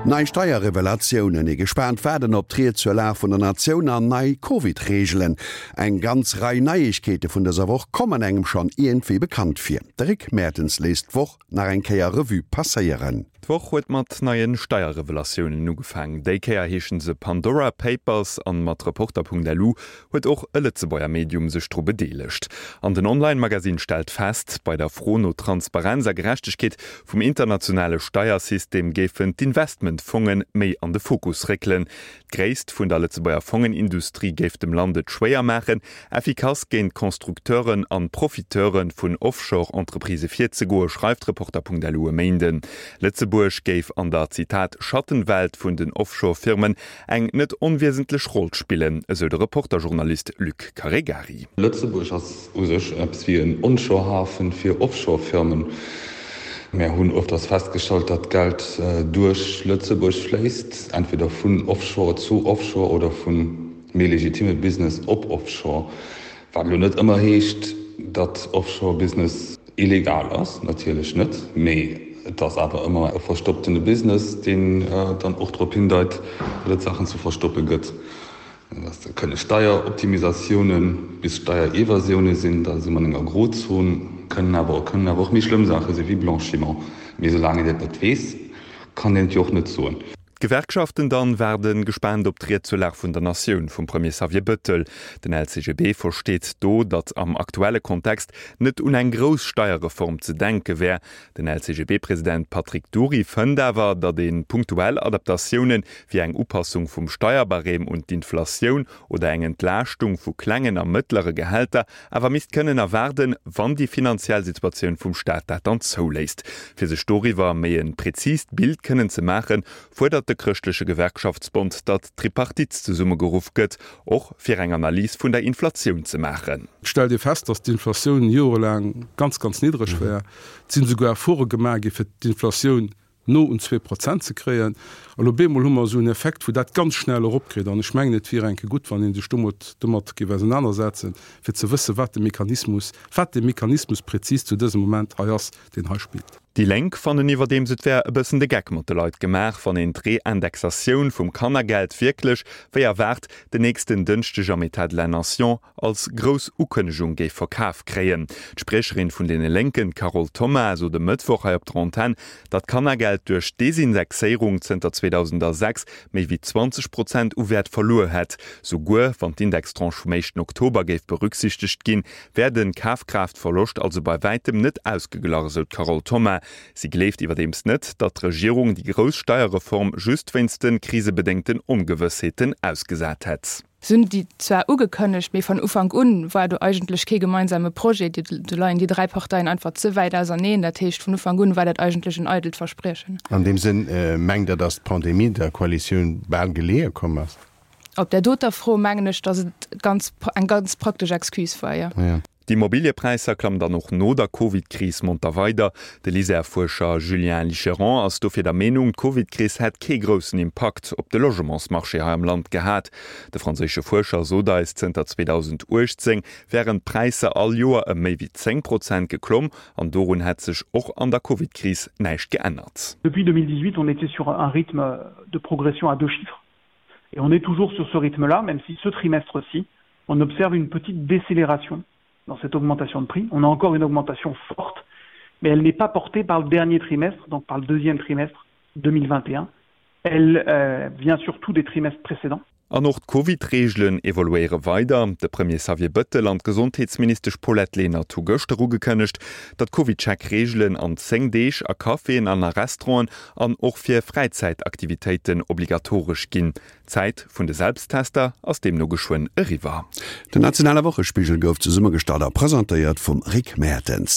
Nei Steierrevelatiounen, ee gespaant Waarden op d'Ried zur Lag vun der Natioun an nei Covid-Reegelen. Eng ganz Rei Neiegkeete vun dëser Woch kommen engem schonn iergendwéi bekannt vir. De Rick Mertens léisst d'Woch nach eng Kéier Revue passéieren. D'Woch huet mat neie Steierrevelatiounen ugefaang. Déi Kéier heeschen se Pandora Papers an mat Reporter.lu huet och e Lëtzebuerger Medium sech dru bedeelegt. An den Online-Magasinn stellt fest, bei der Fro no Transparenz a Gerechtegkeet vum internationale Steiersystem géifen d'Investmentfonge méi an de Fokus réckelen. D'Gréisst vun der Lëtzebuerger Fongenindustrie géif dem Land et schwéier maachen, effikass géint Constructeuren an Profiteure vun Offshore-Entreprisë virzegoen, schreift Reporter.lu e Méinden. Lëtzebuerg géif an der, Zitat, Schattenwelt vun den Offshore-Firmen eng net onwiesentlech Roll spillen, esou de Reporter-Journalist Luc Caregari. Lëtzebuerg ass u sech eppes wéi en Onshore-Hafen fir Offshore-Firmen. Mär hunn öfters festgestallt, datt Geld duerch Lëtzebuerg fléisst, entweder vun Offshore zu Offshore oder vu méi legitime Business op Offshore. Wat elo net ëmmer heescht, datt Offshore-Business illegal ass, natierlech net, mee et ass awer ëmmer e verstopptene Business, deen dann och drop hindeit, datt et Saachen ze verstoppe gëtt. Dat kënne Steieroptimisatioune bis Steierevasioune sinn, da si mer an enger Grozon, kënnen awer kënnen awer och méi schlëmm Saache si wéi Blanchiment. Mee soulaang een dat net weess, kann een et jo och net soen. D'Gewerkschaften dann waarden gespaant op d'Ried zur Lag vun der Natioun vum Premier Xavier Bëttel. Den LCGB versteet do, datt am aktuelle Kontext net un eng grouss Steierreform ze denke wär. Den LCGB-President Patrick Dury fënnt awer, datt ee punktuell Adaptatioune wéi eng Upassung vum Steierbarème un d'Inflatioun oder eng Entlaaschtung vu klengen a mëttlere Gehälter awer misst kënnen erwaarden, wann déi finanziell Situatioun vum Staat dat dann zouléisst. Fir sech doriwwer méi e präzist Bild kënnen ze maachen, fuerdert de Chrëschtleche Gewerkschaftsbond, datt d'Tripartite zesummegeruff gëtt, och fir eng Analys vun der Inflatioun ze maachen. Et stellt ee fest, datt d'Inflatioun jorelaang ganz, ganz niddreg war. Et sinn esouguer Efforte gemaach gi fir d'Inflatioun no un 2% ze kréien. A lo bemol hu mer esou en Effekt, wou dat ganz schnell eropkritt. An ech mengen, et wier enke gutt, wann ee sech domat domat géif ausenanersetzen, fir ze wëssen, wat de Mechanismus, wat de Mechanismus prezis zu dësem Moment hei ass, deen hei spillt. Déi Lénk fannen iwwerdeems, et wär e bëssen de Geck mat de Leit gemaach, wann een d'Reindexatioun vum Kannergeld wierklech, wéi erwaart, den nächsten Dënschdeg am État de la Nation als grouss Ukënnegung géif verkaf kréien. D'Spriecherin vun deene Lénken, d'Carole Thoma, sot e Mëttwoch hei op der Antenn, datt d'Kannergeld duerch d'Desindexéierung zënter 2006 méi wéi 20 Prozent u Wäert verluer hätt. Souguer wann d'Indextranche vum éischten Oktober géif berücksichtegt ginn, wär de Kafkraaftverloscht also bei wäitem net ausgeglach, esou d'Carole Thoma. Si gleeft iwwerdeems net, datt d'Regierung déi grouss Steierreform just wéinst de krisebedéngten Ongewëssheeten ausgesat hätt. Se hunn déi zwar ugekënnegt, mee van Ufank un war do eigentlech kee gemeinsame Projet. Do leien déi 3 Parteien einfach ze wäit auserneen. Dat heescht, vun Ufank un war dat eigentlech en eidelt Verspriechen. An deem Sënn, mengt Der, datt d'Pandemie der Koalitioun bal geleeë komm ass? Op där doter Fro mengen ech, datt et ganz, eng ganz praktesch Excuse war, jo. D'Immobiliëpräisser klammen dann och no der Covid-Kris monter weider. De LISER-Fuerscher Julien Licheron ass dofir der Meenung, d'Covid-Kris hätt kee groussen Impakt op de Logementsmarché hei am Land gehat. De franséische Fuerscher sot eis, zënter 2018 wären d'Präisser all Joer ëm méi wéi 10 Prozent geklomm an dorun hätt sech och an der Covid-Kris näischt geännert. Depuis 2018, on était sur un rythme de progression à deux chiffres et on est toujours sur ce rythme-là, même si ce trimestre-ci, on observe une petite décélération dans cette augmentation de prix. On a encore une augmentation forte, mais elle n'est pas portée par le dernier trimestre, donc par le deuxième trimestre 2021. Elle euh, vient surtout des trimestres précédents. An och d'Covid-Reegelen evoluéiere weider. De Premier Xavier Bëttel an d'Gesondheetsministesch Paulette Lenert hu gëschter ugekënnegt, datt d'CovidCheck-Reegelen an 10 Deeg a Caféen an a Restauranten an och fir Fräizäitaktivitéiten obligatoresch ginn. D'Zäit vun de Selbsttester ass deemno geschwënn eriwwer. Den nationale Wochespigel gouf zesummegestallt a presentéiert vum Rick Mertens.